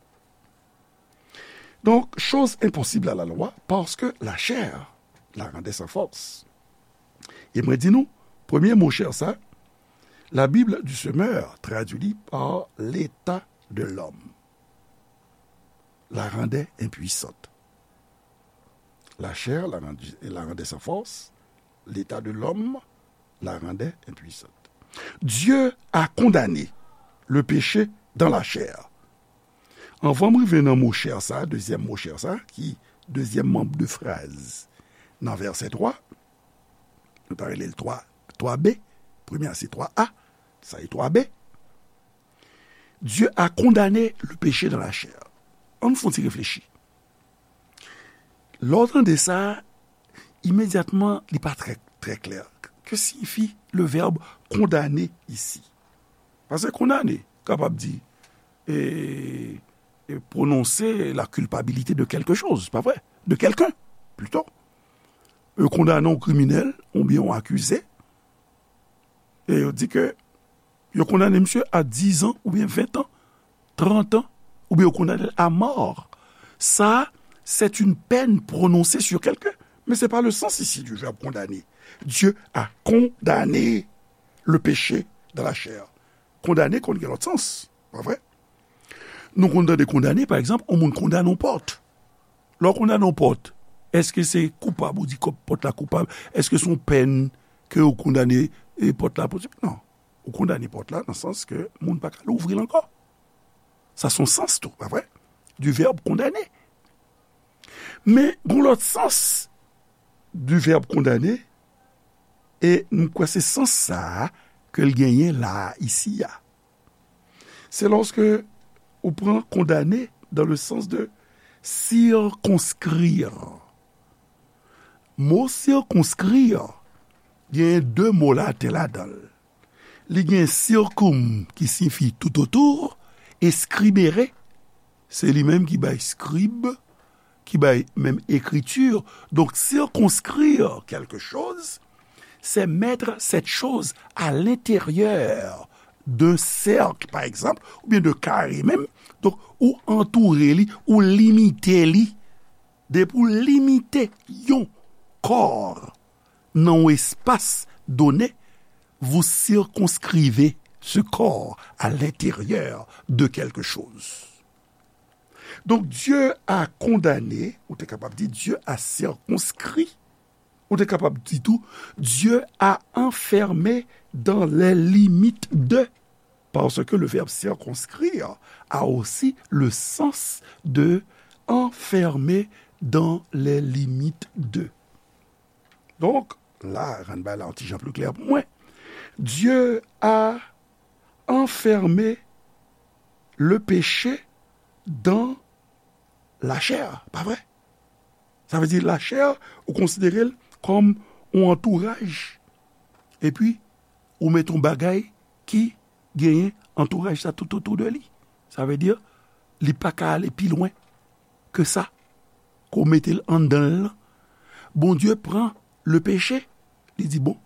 Donc, chose impossible à la loi, parce que la chair la rendait sans force. E mwen di nou, premye mo chair sa, la Bible du Semeur traduit li par l'état de l'homme. La rendait impuissante. La chair la rendu, la rendait sans force. L'état de l'homme la rendait impuissante. Dieu a condamné le péché dans la chair. Anvan m rive nan mo chair sa, dezyèm mo chair sa, ki dezyèm manm de fraz nan vèsè twa, nou ta rele l twa, twa B, premye a se twa A, sa e twa B. Dieu a condamné le péché dans la chair. Ann fè yon ti reflechi. Lè w tande sa, imedyatman, li pa trè, trè klè. Que signifie le verbe condamner ici? Paske condamner kapab di, e, e, prononcer la culpabilité de quelque chose, pa vre? De quelqu'un, plutôt. Yo kondane yon kriminèl oubyen yon akize, e yo di ke yo kondane misye a dizan oubyen ventan, trantan, oubyen yo kondane l a mò. Sa, c'est une peine prononcée sur quelqu'un. Mais c'est pas le sens ici du verbe condamner. Dieu a condamné le péché dans la chair. Kondane konn gen lòt sans, pa vre? Nou konn tande kondane, pa egzanp, yon moun kondane yon pòt. Lè w kondane yon pòt, èske se koupab ou di kòb pòt la koupab? Èske se yon pèn ke w kondane, e, pòt la pou? Non. Ou kondane pòt la nan sans ke moun pa ka louvri l ankò. Sa se yon sans tou, pa vre? Du verbe condamner. Men, gen lòt sans du verbe condamner, e m kwè se sans sa a ke l genyen la a, isi a. C'est lorsque ou pran condamner dans le sens de circonscrire. Mo circonscrire, gen de mo latèn ladan l. Li gen circum ki siyifi tout autour, e scribere, se li menm ki bay scribe, ki bay menm écriture. Donc, circonscrire quelque chose, c'est mettre cette chose à l'intérieur d'un cercle, par exemple, oubyen de kare menm. Donk, ou antoure li, ou limite li. Depi w limite yon kò nan yon espas done, vous circonscrivez ce corps à l'intérieur de quelque chose. Donk, Dieu a condamné, ou te kapab di, Dieu a circonscrit, ou te kapab di tou, Dieu a enfermé dans les limites de, parce que le verbe circonscrire a aussi le sens de enfermer dans les limites de. Donk, la, rann bagay la yon ti jan pli klè pou mwen. Dieu a enfermer le péché dans la chair, pa vre? Sa vle di lachè, ou konsidere l kòm yon antouraj. Epi, ou met yon bagay ki genyen antouraj sa tout otou de li. Sa vle di, li pa ka ale pi lwen ke sa. Ke w mete l anndan l lan. Bondye pran le péché, li di, bon,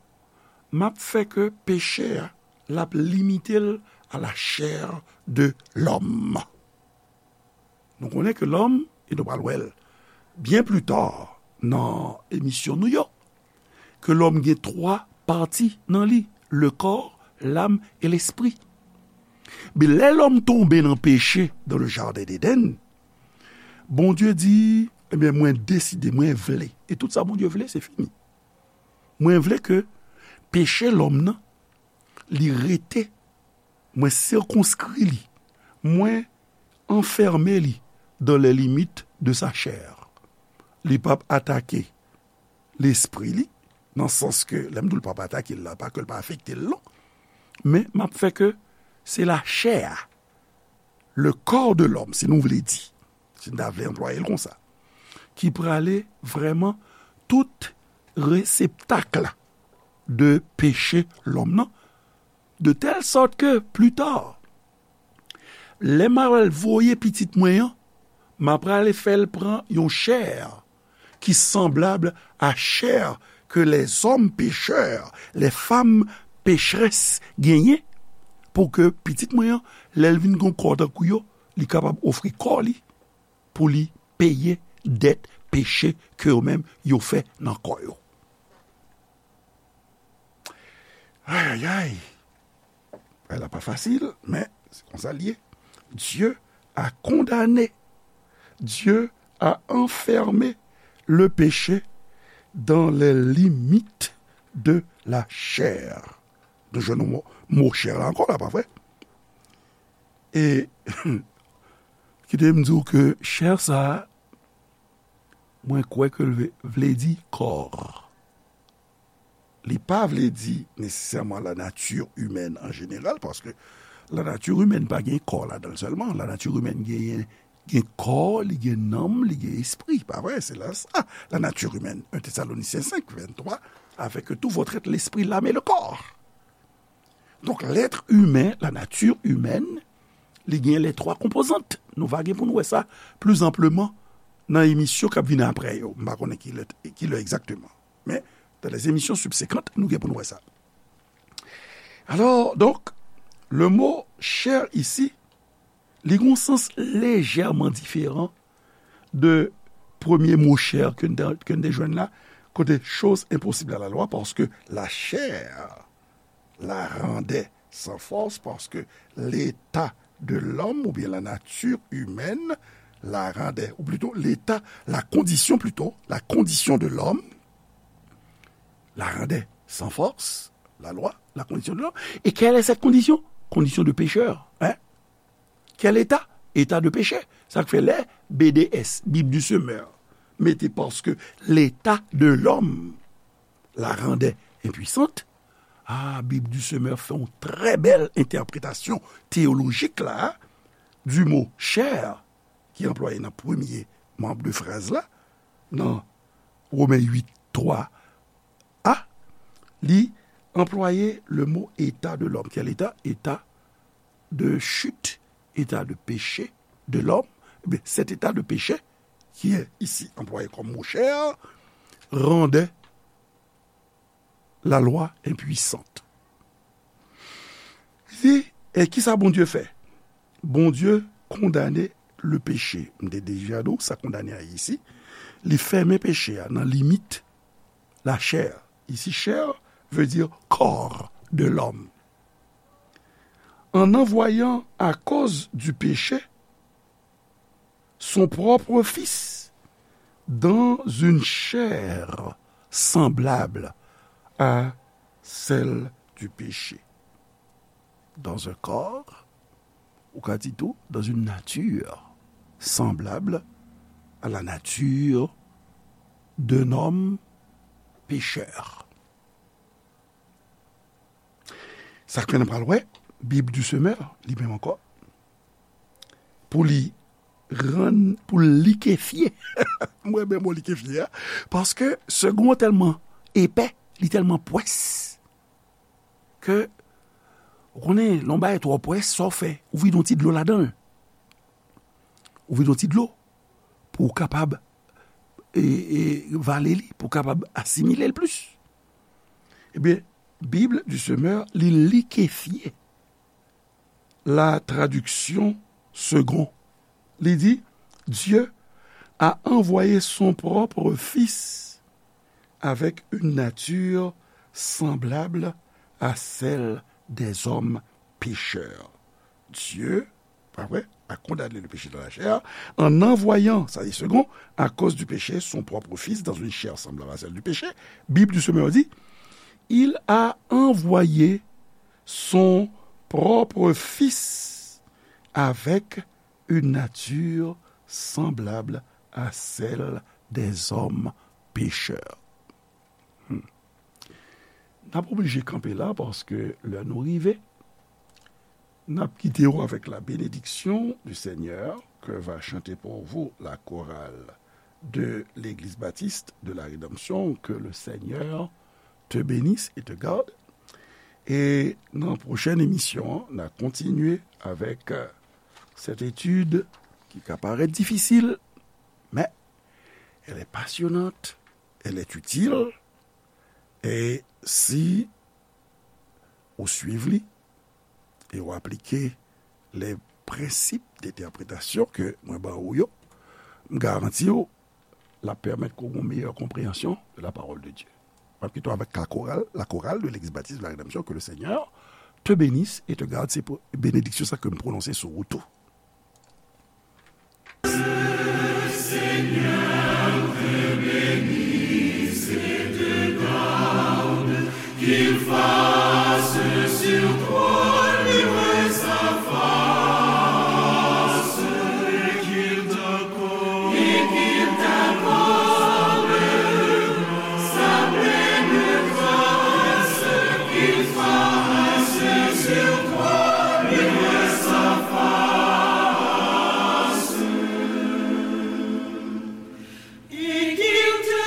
m ap fè ke peche a, l ap limite l à la chair de l'homme. Nou konnen ke lòm, e nou pral wè l byen pli ta nan emisyon nou yo, ke lòm gen twa pati nan li, le corps, l'âme et l'esprit. Men lè lòm tonbe nan peche dans le jardin d'Éden, Bondye di, ebyen, mwen deside, mwen vle. E tout sa Bondye vle, se fini. Mwen vle ke peche lòm nan, li rete, mwen sikonskri li, mwen anfème li dans les limites de sa chair. Li p ap atake lespri li, nan sans ke, lè m di w l p ap atake l la, pa ke l pa afekte l, non. Men, m ap fè ke se lachè a, le corps de l'homme, si nou vle di, si n ta vle anplwaye l konsa, ki prale vrèman tout reseptak la de peche lòm nan, de tèl sòt ke pli ta, lè m a pral voye pitit mwen an, m a prale fè l pran yon chè ki sanblab a chè ke lèzòm pechè, lèfanm pechès genyen, pou ke pitit mwen an, lè l vin gen kò tankou yo, li kapab ofri kò li pou li peye dèt peche ke yo menm yo fè nan kò yo. Ayayay! Bagay la pa fasil, men se konsa l ye. Dieu a condamné, Dieu a enfermé le péché dans les limites de la chair. Nou jwenn mo, mo chè la ankò la, pa vre? E kite m di w ke chè sa a, mwen kwè ke l vle, vle di kò. Li pa vle di nesesèman la nature humaine en général, paske la nature humaine pa gen kò ladan l sèlman. La nature humaine genyen, gen kò, li gen nanm, li gen espri. Pa vre? Se la sa, la nature humaine. Un Thessaloniciens cinq, vingt-trois, avec tout votre être, l'esprit, l'âme et le corps. Donk, l'être humain, la nature humaine, li gen les trois composantes. Nou va gen pou nou wè sa pli anpleman nan emisyon k ap vini apre yo. M pa konnen ki lè, ki lè egzakteman. Men, dans les émissions subséquentes, nou gen pou nou wè sa. Alors, donc, le mot chair ici, li gen yon sans lejèman diferan de premye mo chè ke n te, ke n te jwenn la, kote chose impossible à la loi, paske la chair la rendait sans force, parce que l'état de l'homme, ou bien la nature humaine, la rendait, ou plutôt l'état, la condition plutôt, la condition de l'homme, la rendait sans force, la loi, la condition de l'homme. Et quelle est cette condition? Condition de pécheur, hein? Quel état? État de péché. Sa k fè lè B D S, Bible du Semeur, mete parce que l'état de l'homme la rendait impuissante. Ah, Bible du Semeur fè yon trè bèl entèpretasyon teyolojik la, du mot chair, ki anplwaye nan premye manb de fraz la, nan Women uit twa a, li anplwaye le mot état de l'homme. Quel état? État de chute, état de péché de l'homme. Eh bien, cet état de péché, qui est ici employé comme mot chair, rendait la loi impuissante. Li di, e kisa Bondye fè? Bondye kondane le péché. M te deja di w sa kondane a ye isi. Li fèmen peche a nan limit la chair. Ici, chair veut dire corps de l'homme. En envoyant à cause du péché son propre Fils dans une chair semblable à celle du péché. Dans un corps, ou ka di tou, dans une nature semblable à la nature d'un homme pécheur. Sa k fè n pral wè, Bib di Semè, li menm ankò, pou li rann, pou likefye. Mwen renmen mo likefye a, paske segon an tèlman epè, li tèlman pwès, ke, ou konnen, lè yon bagay twò pwès, sa w fè, ou vide yon ti dlo ladan l. Ou vide yon ti dlo pou w kapab, e, e, vale li, pou w kapab asimile l plis. Ebyen, Bib di Semè, li likefye la traduction Segond. Li di, Dieu a envoyé son propre Fils avec une nature semblable à celle des hommes pécheurs. Dieu, pa vre, a condamné le péché dans la chair, en envoyant, sa di Segond, à cause du péché, son propre Fils dans une chair semblable à celle du péché. Bib di Semè di, il a envoyé son propre Fils avec une nature semblable à celle des hommes pécheurs. Hmm. N ap oblije kanpe la paske lè nou rive, n ap kite w avec la bénédiction du Seigneur que va chanter pour vous la chorale de l'Église Baptiste de la Rédemption, que le Seigneur te bénisse et te garde. E nan pwochèn emisyon an, n a kontinye avèk, euh, cette étude qui ka parèt difisil, mais elle est passionnante, elle est utile, e si ou swiv li, e w aplike les principes d'interprétation ke mwen ba ou yo, m garanti w, l ap pèmèt ke w gen yon meyè konpreyansyon de la parole de Dieu. M ap kite w avèk la chorale, la chorale de l'Église Baptiste de la Rédemption, que le Seigneur te bénisse et te garde, se pou benediksyon sa ke m pwononse sou ou tou. Qu'il fasse sur toi luire sa face, et qu'il t'accorde, et qu'il t'accorde sa pleine grâce, qu'il fasse sur toi luire sa face. Et qu'il te,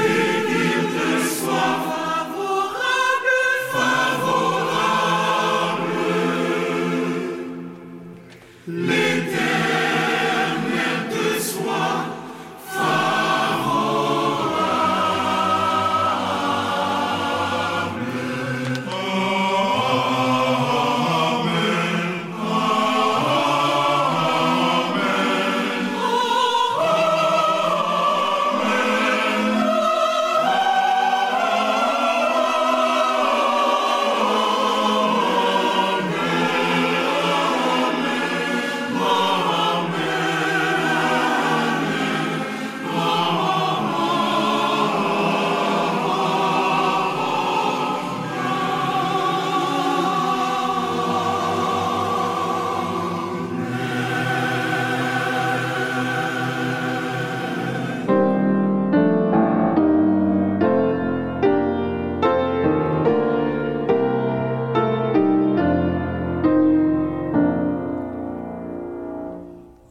et qu'il te soit favorable, favorable. L'Éternel te soit favorable. Amen.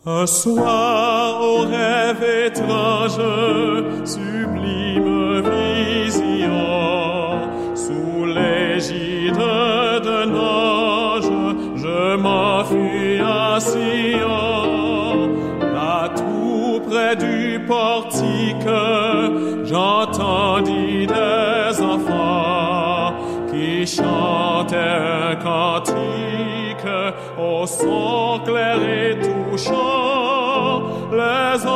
Un soir, au rêve étrange, sublime vision, sous l'égide d'un ange, je m'enfuis à Sion. Là, tout près du portique, j'entendis des enfants qui chantaient un cantique au son clair et touchant. Les